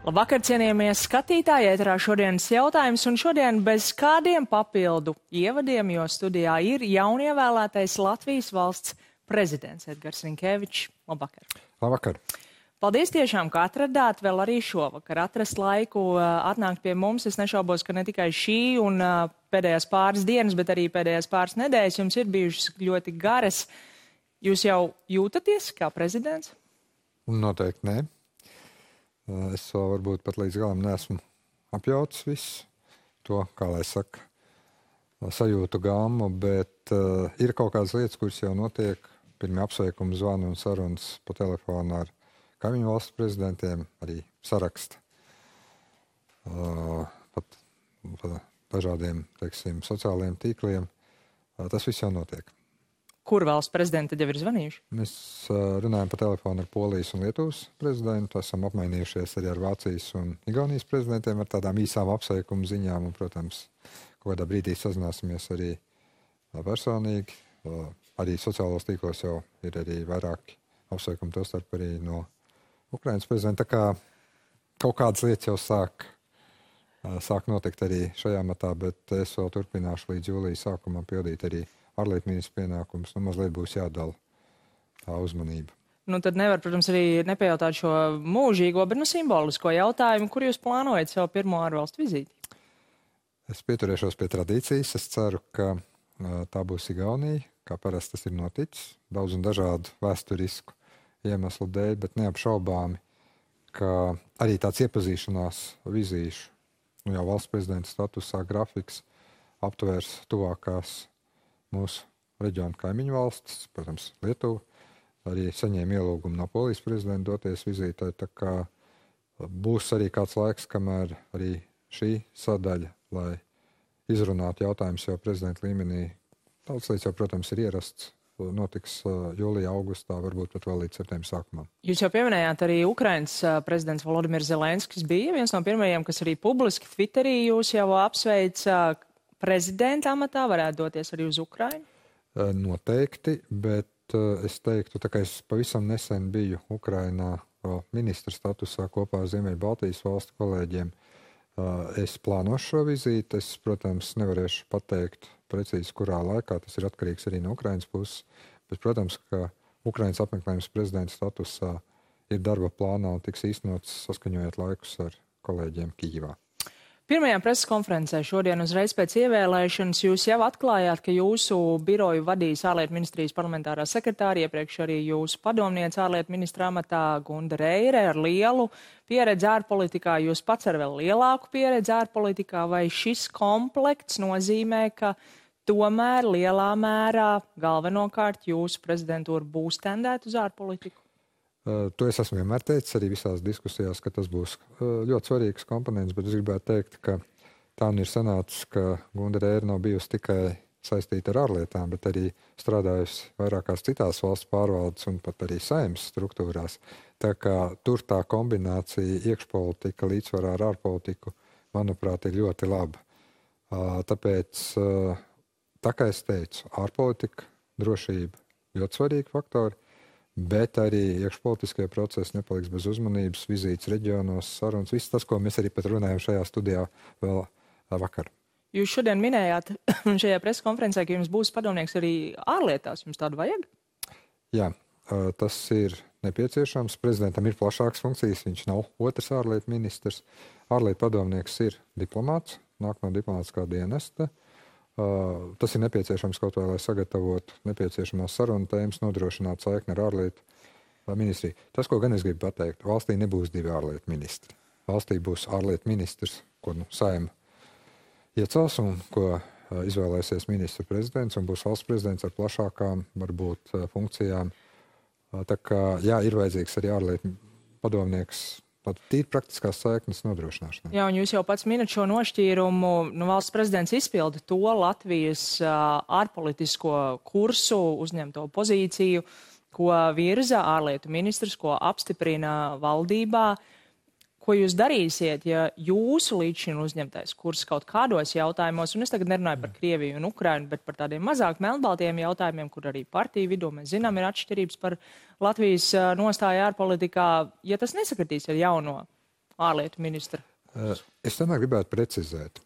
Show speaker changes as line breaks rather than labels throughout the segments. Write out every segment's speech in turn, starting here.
Labvakar, cienījamie skatītāji, ēterā šodienas jautājums, un šodien bez kādiem papildu ievadiem, jo studijā ir jaunievēlētais Latvijas valsts prezidents Edgars Rinkēvičs. Labvakar.
Labvakar.
Paldies tiešām, ka atradāt vēl arī šovakar atrast laiku atnākt pie mums. Es nešaubos, ka ne tikai šī un pēdējās pāris dienas, bet arī pēdējās pāris nedēļas jums ir bijušas ļoti garas. Jūs jau jūtaties kā prezidents?
Noteikti nē. Es vēl varbūt pat līdz galam neesmu apjauts visu to, kā lai saka, sajūtu gammu, bet ir kaut kādas lietas, kuras jau notiek. Pirmie apsveikumi zvani un sarunas pa telefonu ar kaimiņu valstu prezidentiem, arī saraksta pat dažādiem, teiksim, sociālajiem tīkliem. Tas viss jau notiek.
Kur valsts prezidenti tad jau ir zvanījuši?
Mēs runājam pa telefonu ar Polijas un Lietuvas prezidentu, esam apmainījušies arī ar Vācijas un Igaunijas prezidentiem ar tādām īsām apsveikumu ziņām un, protams, kaut kādā brīdī sazināsimies arī personīgi. Arī sociālos tīklos jau ir arī vairāki apsveikumi, tostarp arī no Ukrainas prezidenta. Tā kā kaut kādas lietas jau sāk notikt arī šajā matā, bet es vēl turpināšu līdz jūlijas sākumam pildīt arī ārlietu ministra pienākums. Mazliet būs jādala tā uzmanība.
Tad nevar, protams, arī nepajautāt šo mūžīgo, bet simbolisko jautājumu, kur jūs plānojat savu pirmo ārvalstu vizīti?
Es pieturēšos pie tradīcijas. Es ceru, ka tā būs Igaunija, kā parasti tas ir noticis, daudz un dažādu vēsturisku iemeslu dēļ, bet neapšaubāmi, ka arī tāds iepazīšanās vizīšu, jau valsts prezidenta statusā grafiks aptvērs tuvākās mūsu reģionu kaimiņu valstis, protams, Lietuva, arī saņēma ielūgumu no Polijas prezidenta doties vizītē, tā kā būs arī kāds laiks, kamēr arī šī sadaļa, lai izrunātu jautājumus jau prezidenta līmenī. Daudz lietas jau, protams, ir ierasts, notiks jūlijā, augustā, varbūt pat vēl līdz septembra sākumam.
Jūs jau pieminējāt arī Ukrainas prezidents Volodimirs Zelenskis bija viens no pirmajiem, kas arī publiski Twitterī jūs jau apsveica. Prezidenta amatā varētu doties arī uz Ukrainu?
Noteikti, bet es teiktu, tā kā es pavisam nesen biju Ukrainā ministra statusā kopā ar Ziemeļbaltijas valstu kolēģiem, es plānošu šo vizīti. Es, protams, nevarēšu pateikt precīzi, kurā laikā. Tas ir atkarīgs arī no Ukrainas puses. Bet, protams, ka Ukrainas apmeklējums prezidenta statusā ir darba plānā un tiks īstenots saskaņojot laikus ar kolēģiem Kijivā.
Pirmajā preses konferencē šodien uzreiz pēc ievēlēšanas jūs jau atklājāt, ka jūsu biroju vadīs ārlietu ministrijas parlamentārā sekretāra, iepriekš arī jūsu padomniece ārlietu ministra amatā Gunda Reire ar lielu pieredzi ārpolitikā, jūs pats ar vēl lielāku pieredzi ārpolitikā, vai šis komplekts nozīmē, ka tomēr lielā mērā galvenokārt jūsu prezidentūra būs tendēta uz ārpolitiku?
To es esmu vienmēr teicis arī visās diskusijās, ka tas būs ļoti svarīgs komponents, bet es gribētu teikt, ka tā ir sanācis, ka Gunda Reire nav bijusi tikai saistīta ar ārlietām, bet arī strādājusi vairākās citās valsts pārvaldes un pat arī saimnes struktūrās. Tā kā tur tā kombinācija iekšpolitika līdzsvarā ar ārpolitiku, manuprāt, ir ļoti laba. Tāpēc, tā kā es teicu, ārpolitika, drošība ļoti svarīgi faktori, bet arī iekšpolitiskie procesi nepaliks bez uzmanības, vizītes reģionos, sarunas, viss tas, ko mēs arī pat runājam šajā studijā vēl vakar.
Jūs šodien minējāt šajā preses konferencē, ka jums būs padomnieks arī ārlietās. Jums tādu vajag?
Jā, tas ir nepieciešams. Prezidentam ir plašākas funkcijas, viņš nav otrs ārlietu ministrs. Ārlietu padomnieks ir diplomāts, nāk no diplomātiskā dienesta. Tas ir nepieciešams kaut vai, lai sagatavotu nepieciešamās sarunu tēmas, nodrošinātu saikni ar ārlietu ministriju. Tas, ko gan es gribu pateikt, valstī nebūs divi ārlietu ministri. Valstī būs ārlietu ministrs, ko Saeima iecels un ko izvēlēsies ministra prezidents, un būs valsts prezidents ar plašākām, varbūt, funkcijām. Tā kā, jā, ir vajadzīgs arī ārlietu padomnieks, tīri praktiskās saiknes nodrošināšanai.
Jā, un jūs jau pats minat šo nošķīrumu. Valsts prezidents izpilda to Latvijas ārpolitisko kursu, uzņemto pozīciju, ko virza ārlietu ministrs, ko apstiprina valdībā. Ko jūs darīsiet, ja jūsu līdz šim uzņemtais kurs kaut kādos jautājumos, un es tagad nerunāju par Krieviju un Ukrainu, bet par tādiem mazāk melnbaltiem jautājumiem, kur arī partiju vidū mēs zinām ir atšķirības par Latvijas nostāju ārpolitikā, ja tas nesakritīs ar jauno ārlietu ministra?
Es tomēr gribētu precizēt.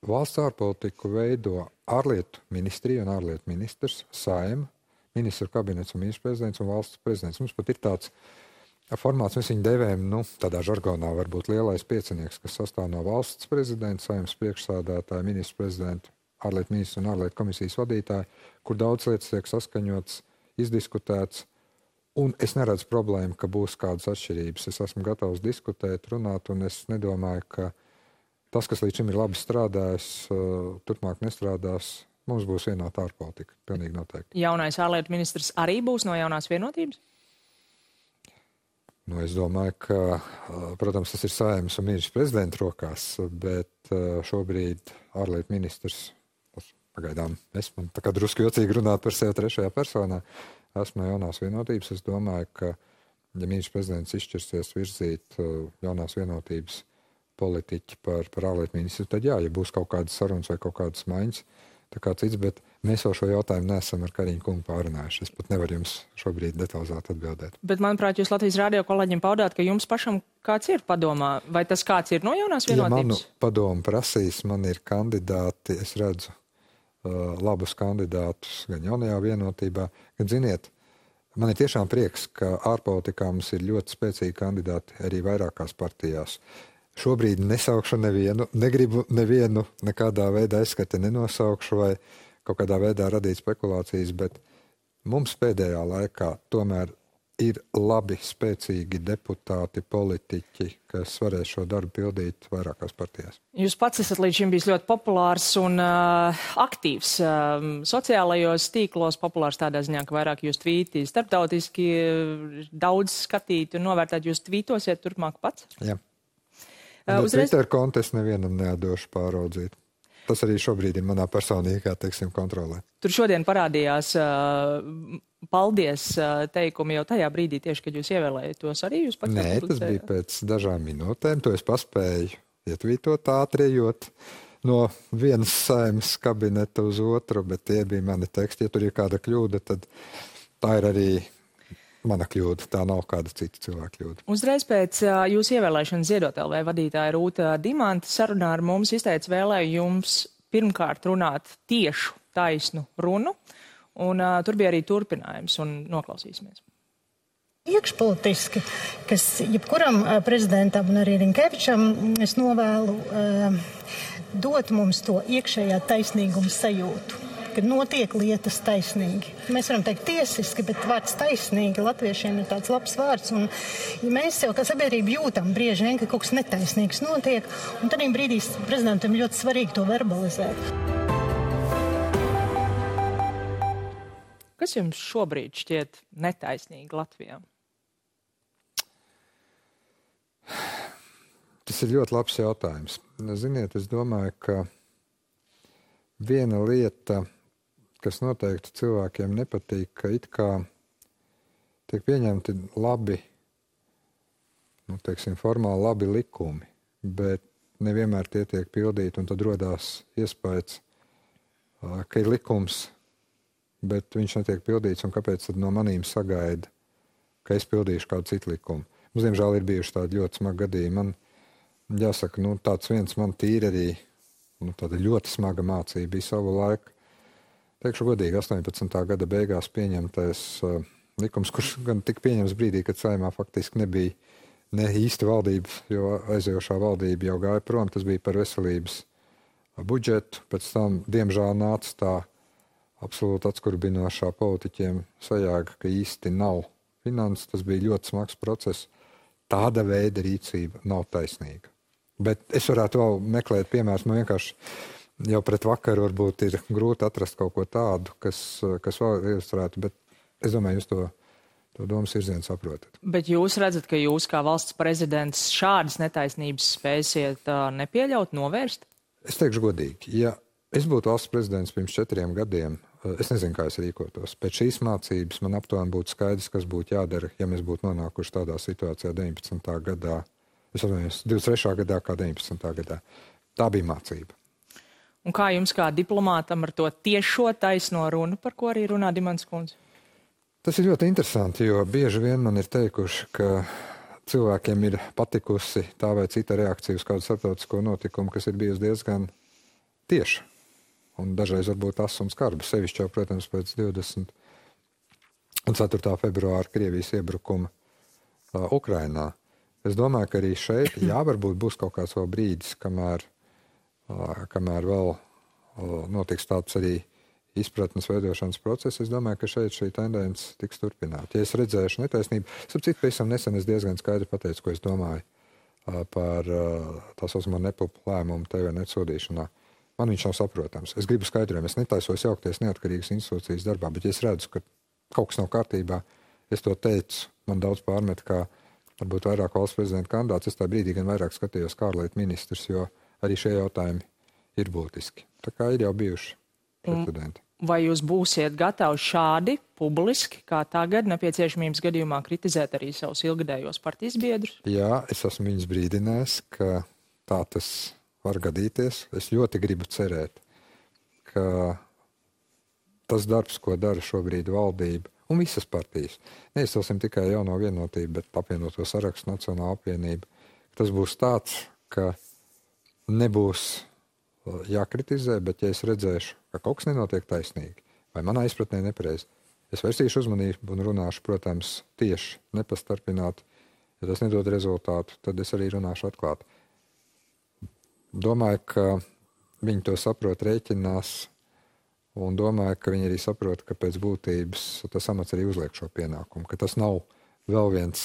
Valsts ārpolitiku veido ārlietu ministrija un ārlietu ministrs, Saeima, ministru kabinets un ministrs prezidents un valsts prezidents. Mums pat ir tāds formāts, mēs viņu devējam, tādā žargonā varbūt lielais piecinieks, kas sastāv no valsts prezidenta, Saeimas priekšsādātāja, ministru prezidenta, ārlietu ministru un ārlietu komisijas vadītāja, kur daudz lietas tiek saskaņots, izdiskutēts. Un es neredzu problēmu, ka būs kādas atšķirības. Es esmu gatavs diskutēt, runāt, un es nedomāju, ka tas, kas līdz šim ir labi strādājis, turpmāk nestrādās. Mums būs vienota ārpolitika, pilnīgi noteikti.
Jaunais ārlietu ministrs arī būs no jaunās vienotības?
Es domāju, ka, protams, tas ir Saeimas un ministrs prezidenta rokās, bet šobrīd ārlietu ministrs, pagaidām, man tā kā drusku jocīgi runāt par sevi trešajā personā, esmu no jaunās vienotības. Es domāju, ka, ja ministrs prezidents izšķirsies virzīt jaunās vienotības politiķi par ārlietu ministru, tad jā, ja būs kaut kādas sarunas vai kaut kādas maiņas, tā kā cits, bet mēs jau šo jautājumu neesam ar Kariņu kungu pārunājuši. Es pat nevaru jums šobrīd detalizēti atbildēt.
Bet, manuprāt, jūs Latvijas radio kolēģiem paudāt, ka jums pašam kāds ir padomā, vai tas kāds ir no jaunās vienotības?
Ja manu padomu prasīs, man ir kandidāti, es redzu labus kandidātus gan jaunajā vienotībā, gan, ziniet, man ir tiešām prieks, ka ārpolitikā mums ir ļoti spēcīgi kandidāti arī vairākās partijās. Šobrīd nesaukšu nevienu, negribu nevienu nekādā veidā aizskati nenosaukšu vai kaut kādā veidā radīt spekulācijas, bet mums pēdējā laikā tomēr ir labi, spēcīgi deputāti, politiķi, kas varēs šo darbu pildīt vairākās partijās.
Jūs pats esat līdz šim bijis ļoti populārs un aktīvs sociālajos tīklos, populārs tādā ziņā, ka vairāk jūs tvīti starptautiski daudz skatīt un novērtēt. Jūs tvītosiet turpmāk pats?
Jā. Twitter kontu es nevienam neatdošu pāraudzīt. Tas arī šobrīd ir manā personīgā, kontrolē.
Tur šodien parādījās paldies teikumi jau tajā brīdī, tieši, kad jūs ievēlējat tos arī jūs pats?
Nē, tas bija pēc dažām minūtēm. To es paspēju ietvītot ātri, ejot no vienas Saeimas kabineta uz otru, bet tie bija mani teksti. Ja tur ir kāda kļūda, tad tā ir arī mana kļūda, tā nav kāda cita cilvēka kļūda.
Uzreiz pēc jūsu ievēlēšanas Ziedot LV vadītāja Rūta Dimanta sarunā ar mums izteica vēlējums pirmkārt runāt tiešu, taisnu runu, un tur bija arī turpinājums, un noklausīsimies.
Iekšpolitiski, kas jebkuram prezidentam un arī Rinkevičam es novēlu dot mums to iekšējā taisnīguma sajūtu, kad notiek lietas taisnīgi. Mēs varam teikt tiesiski, bet vārds taisnīgi latviešiem ir tāds labs vārds. Un, ja mēs jau kā sabiedrība jūtam brieži vien, ka kaut kas netaisnīgs notiek, un tad brīdī prezidentam ļoti svarīgi to verbalizēt.
Kas jums šobrīd šķiet netaisnīgi Latvijā?
Tas ir ļoti labs jautājums. Ziniet, es domāju, ka viena lieta, kas noteikti cilvēkiem nepatīk, ka it kā tiek pieņemti labi, formāli labi likumi, bet nevienmēr tie tiek pildīti, un tad rodās iespējas, ka ir likums, bet viņš netiek pildīts, un kāpēc tad no manīm sagaida, ka es pildīšu kādu citu likumu. Mums, diemžēl, ir bijuši tādi ļoti smagi gadījumi. Man jāsaka, tāds viens man tīri arī, tāda ļoti smaga mācība bija savu laiku. Teikšu godīgi, 18. gada beigās pieņemtais likums, kurš gan tika pieņems brīdī, kad Saeimā faktiski nebija ne īsti valdība, jo aizejošā valdība jau gāja prom. Tas bija par veselības budžetu. Pēc tam, diemžēl, nāca tā absolūti atskurbinošā politiķiem sajēga, ka īsti nav finanses. Tas bija ļoti smags process. Tāda veida rīcība nav taisnīga. Bet es varētu vēl meklēt piemērus. Man vienkārši jau pret vakaru varbūt ir grūti atrast kaut ko tādu, kas vēl ilustrētu, bet es domāju, jūs to domas virzienu saprotat.
Bet jūs redzat, ka jūs kā valsts prezidents šādas netaisnības spēsiet nepieļaut, novērst?
Es teikšu godīgi, ja es būtu valsts prezidents pirms 4 gadiem, es nezinu, kā es rīkotos. Pēc šīs mācības man aptuveni būtu skaidrs, kas būtu jādara, ja mēs būtu nonākuši tādā situācijā 19. gadā, 23. gadā kā 19. gadā. Tā bija mācība.
Un kā jums kā diplomātam ar to tiešo taisno runu, par ko arī runā Dimants kundze?
Tas ir ļoti interesanti, jo bieži vien man ir teikuši, ka cilvēkiem ir patikusi tā vai cita reakcija uz kādu starptautisko notikumu, kas ir bijusi diezgan tieša. Un dažreiz varbūt tas un skarba. Sevišķi jau, protams, pēc 24. februāra Krievijas iebrukuma Ukrainā. Es domāju, ka arī šeit, varbūt būs kaut kāds vēl brīdis, kamēr vēl notiks tāds arī izpratnes veidošanas process. Es domāju, ka šeit šī tendence tiks turpināta. Ja es redzēšu netaisnību, sapratu, pavisam nesen es diezgan skaidri pateicu, ko es domāju par tā saucamo nepupu lēmumu TVNet sodīšanā. Man viņš nav saprotams. Es gribu skaidrojumu. Es netaisos jaukties neatkarīgas institūcijas darbā, bet ja es redzu, ka kaut kas nav kārtībā, es to teicu, man daudz pārmet, kā varbūt vairāk valsts prezidenta kandidāts. Es tā brīdī gan vairāk skatījos kā ārlietu ministrs, jo arī šie jautājumi ir būtiski. Tā kā ir jau bijuši precedenti.
Vai jūs būsiet gatavi šādi publiski, kā tagad, nepieciešamības gadījumā kritizēt arī savus ilgadējos partijas biedrus?
Jā, es esmu viņus brīdinājis, ka tā tas var gadīties. Es ļoti gribu cerēt, ka tas darbs, ko dara šobrīd valdība un visas partijas, neizcelsim tikai Jauno Vienotību, bet apvienoto sarakstu Nacionālo apvienību, tas būs tāds, ka nebūs jākritizē, bet ja es redzēšu, ka kaut kas nenotiek taisnīgi, vai manā izpratnē nepareizi, es vērsīšu uzmanību un runāšu, protams, tieši, nepastarpināt. Ja tas nedod rezultātu, tad es arī runāšu atklāti. Domāju, ka viņi to saprot, rēķinās, un domāju, ka viņi arī saprot, ka pēc būtības tas amats arī uzliek šo pienākumu, ka tas nav vēl viens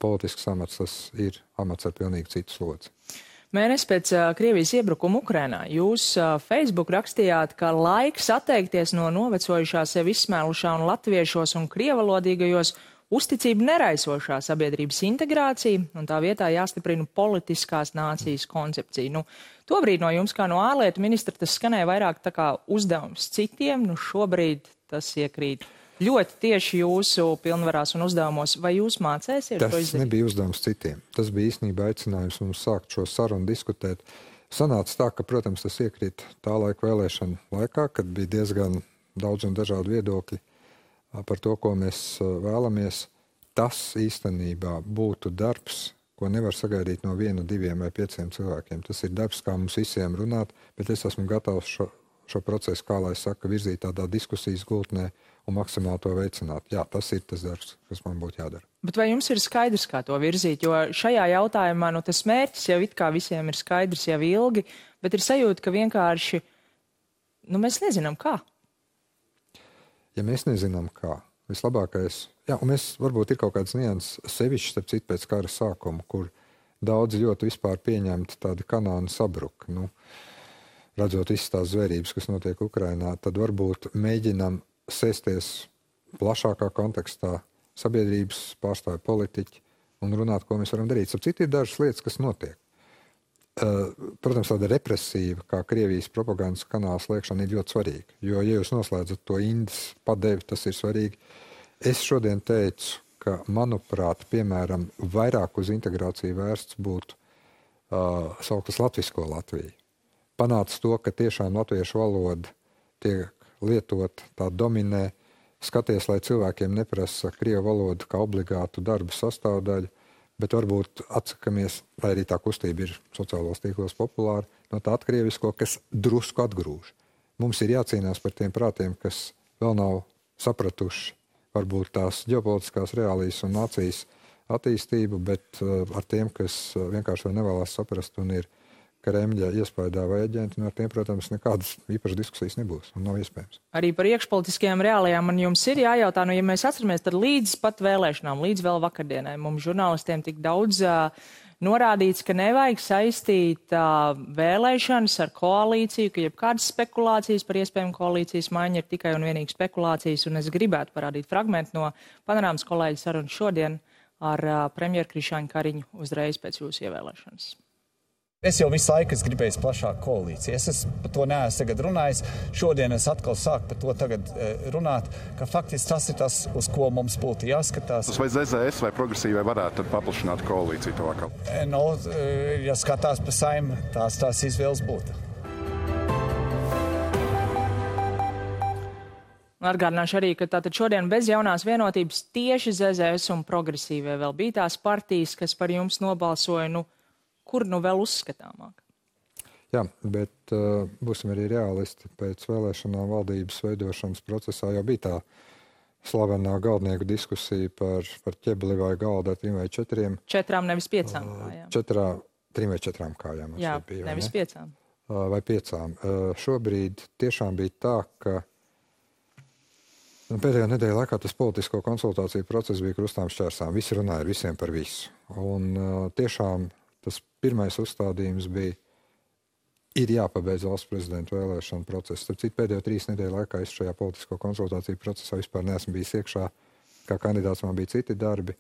politisks amats, tas ir amats ar pilnīgi citu slodzi.
Mēnesi pēc Krievijas iebrukuma Ukrainā jūs Facebook rakstījāt, ka laiks atteikties no novecojušā sevi izsmēlušā un latviešos un krievalodīgajos uzticību neraisošā sabiedrības integrācija, un tā vietā jāstiprina politiskās nācijas koncepcija. Tobrīd no jums, kā no ārlietu ministra, tas skanēja vairāk tā kā uzdevums citiem, šobrīd tas iekrīt ļoti tieši jūsu pilnvarās un uzdevumos. Vai jūs mācēsiet to izdarīt?
Tas nebija uzdevums citiem. Tas bija īstenībā aicinājums mums sākt šo sarunu diskutēt. Sanāca tā, ka, protams, tas iekrīt tā laika vēlēšanu laikā, kad bija diezgan daudz un dažādi viedokļi par to, ko mēs vēlamies. Tas īstenībā būtu darbs, ko nevar sagaidīt no 1, 2 vai 5 cilvēkiem. Tas ir darbs, kā mums visiem runāt, bet es esmu gatavs šo procesu, kā lai saka, virzīt tādā diskusijas gultnē un maksimāli to veicināt. Jā, tas ir tas darbs, kas man būtu jādara.
Bet vai jums ir skaidrs, kā to virzīt? Jo šajā jautājumā tas mērķis jau it kā visiem ir skaidrs jau ilgi, bet ir sajūta, ka vienkārši mēs nezinām kā.
Ja mēs nezinām kā, vislabākais, un mēs varbūt ir kaut kāds nianses sevišķi, starp citu pēc kara sākuma, kur daudzi ļoti vispār pieņemti tādi kanāni sabruka. Redzot visas tās zvērības, kas notiek Ukrainā, tad varbūt mēģinam sēsties plašākā kontekstā, sabiedrības pārstāvju politiķi un runāt, ko mēs varam darīt. Starp citu ir dažas lietas, kas notiek. Protams, tāda represīva, kā Krievijas propagandas kanāla slēgšana ir ļoti svarīga, jo, ja jūs noslēdzat to indes padevi, tas ir svarīgi. Es šodien teicu, ka, manuprāt, piemēram, vairāk uz integrāciju vērsts būtu sauktas latvisko Latviju. Panāca to, ka tiešām latviešu valoda tiek lietot, tā dominē. Skaties, lai cilvēkiem neprasa krievu valodu kā obligātu darba sastāvdaļu, bet varbūt atsakamies, lai arī tā kustība ir sociālos tīklos populāra, no tā atkrievisko, kas drusku atgrūž. Mums ir jācīnās par tiem prātiem, kas vēl nav sapratuši varbūt tās ģeopolitiskās reālijas un nācijas attīstību, bet ar tiem, kas vienkārši vēl nevēlās saprast un ir Kremļa iespējā vai aģenti, ar tiem, protams, nekādas īpašas diskusijas nebūs un nav iespējams.
Arī par iekšpolitiskajām reālijām man jums ir jājautā, ja mēs atceramies, tad līdz pat vēlēšanām, līdz vēl vakardienai, mums žurnālistiem tik daudz norādīts, ka nevajag saistīt vēlēšanas ar koalīciju, ka jebkādas spekulācijas par iespējamu koalīcijas maiņu ir tikai un vienīgi spekulācijas, un es gribētu parādīt fragmentu no Panorāmas kolēģa sarunas šodien ar premjeru Krišjāņu Kariņu uzreiz pēc jūsu ievēlēšanas.
Es jau visu laiku gribēju plašāku koalīciju. Es par to neesmu tagad runājis. Šodien es atkal sāku par to tagad runāt, ka faktiski tas ir tas, uz ko mums būtu jāskatās.
Vai ZZS vai progresīvai varētu tad paplašināt koalīciju tuvākā?
Ja skatās pa Saeimu, tās izvēles būtu.
Atgādināšu arī, ka tātad šodien bez jaunās vienotības tieši ZZS un progresīvie vēl bija tās partijas, kas par jums nobalsoja, kur vēl uzskatāmāk?
Jā, bet būsim arī realisti. Pēc vēlēšanām valdības veidošanas procesā jau bija tā slavenā galdnieku diskusija par ķebli vai galdu ar 3 vai 4.
4, nevis 5 kājām.
3 vai 4 kājām.
Jā,
bija,
nevis 5.
Vai 5. Šobrīd tiešām bija tā, ka pēdējā nedēļa laikā tas politisko konsultāciju process bija krustām šķērsām. Visi runāja ar visiem par visu. Un tiešām tas pirmais uzstādījums bija, ir jāpabeidz valsts prezidenta vēlēšana process. Starp citu, pēdējo 3 nedēļu laikā es šajā politisko konsultāciju procesā vispār neesmu bijis iekšā. Kā kandidāts man bija citi darbi.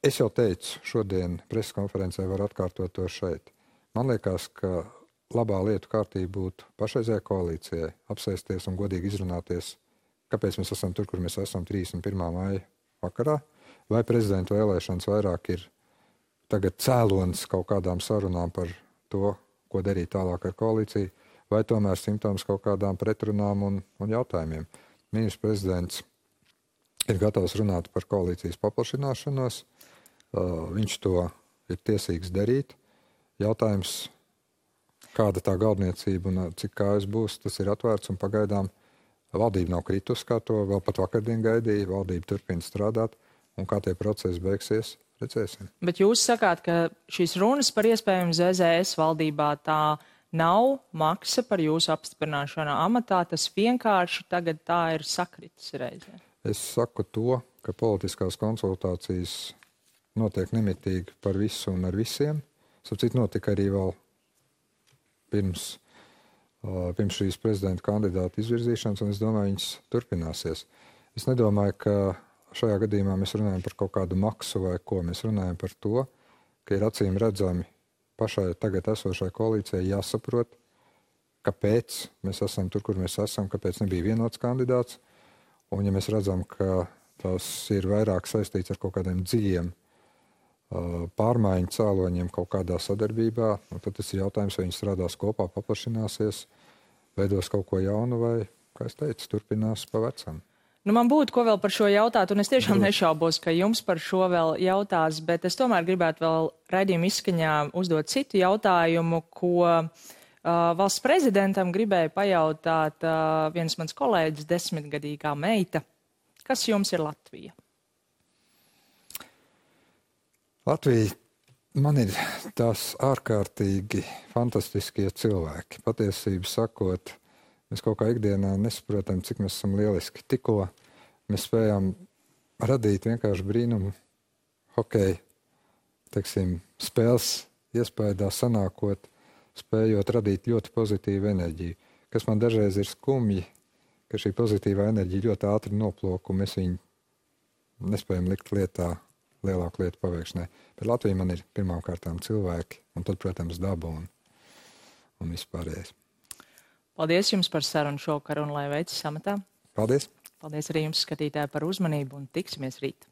Es jau teicu, šodien preses konferencē var atkārtot to šeit. Man liekas, ka labā lietu kārtība būtu pašreizējai koalīcijai apsēsties un godīgi izrunāties, kāpēc mēs esam tur, kur mēs esam 31. maija vakarā, vai prezidenta vēlēšanas vairāk ir tagad cēlonis kaut kādām sarunām par to, ko darīt tālāk ar koalīciju, vai tomēr simptoms kaut kādām pretrunām un jautājumiem. Ministrs prezidents ir gatavs runāt par koalīcijas paplašināšanos, viņš to ir tiesīgs darīt. Jautājums, kāda tā galdniecība un cik kājas būs, tas ir atvērts un pagaidām valdība nav kritus, kā to vēl pat vakardien gaidīja, valdība turpina strādāt, un kā tie procesi beigsies, redzēsim.
Bet jūs sakāt, ka šīs runas par iespējamu ZZS valdībā tā nav maksa par jūsu apstiprināšanu amatā, tas vienkārši tagad tā ir sakritis reizē.
Es saku to, ka politiskās konsultācijas notiek nemitīgi par visu un ar visiem. Sapcīt notika arī vēl pirms šīs prezidenta kandidāta izvirzīšanas, un es domāju, viņas turpināsies. Es nedomāju, ka šajā gadījumā mēs runājam par kaut kādu maksu vai ko. Mēs runājam par to, ka ir acīm redzami pašai tagad esošai koalīcijai jāsaprot, kāpēc mēs esam tur, kur mēs esam, kāpēc nebija vienots kandidāts. Un ja mēs redzam, ka tas ir vairāk saistīts ar kaut kādiem dziļiem pārmaiņu cēloņiem kaut kādā sadarbībā, tad tas ir jautājums, vai viņi strādās kopā, paplašināsies, veidos kaut ko jaunu vai, kā es teicu, turpinās pa vecam.
Man būtu ko vēl par šo jautāt, un es tiešām nešaubos, ka jums par šo vēl jautās, bet es tomēr gribētu vēl raidījuma izskaņā uzdot citu jautājumu, ko valsts prezidentam gribēja pajautāt viens mans kolēģis, 10-gadīgā meita. Kas jums ir Latvija?
Latvija man ir tās ārkārtīgi fantastiskie cilvēki. Patiesību sakot, mēs kaut kā ikdienā nesaprotam, cik mēs esam lieliski. Tikko mēs spējām radīt vienkārši brīnumu hokeja, teiksim, spēles iespējā sanākot, spējot radīt ļoti pozitīvu enerģiju. Kas man dažreiz ir skumji, ka šī pozitīvā enerģija ļoti ātri noplok, un mēs viņu nespējam likt lietā, lielāku lietu paveikšanai. Bet Latvija man ir pirmām kārtām cilvēki, un tad, protams, daba un vispārējais.
Paldies jums par sarunu šovakar un lai veicas amatā.
Paldies.
Paldies arī jums, skatītāji, par uzmanību un tiksimies rīt.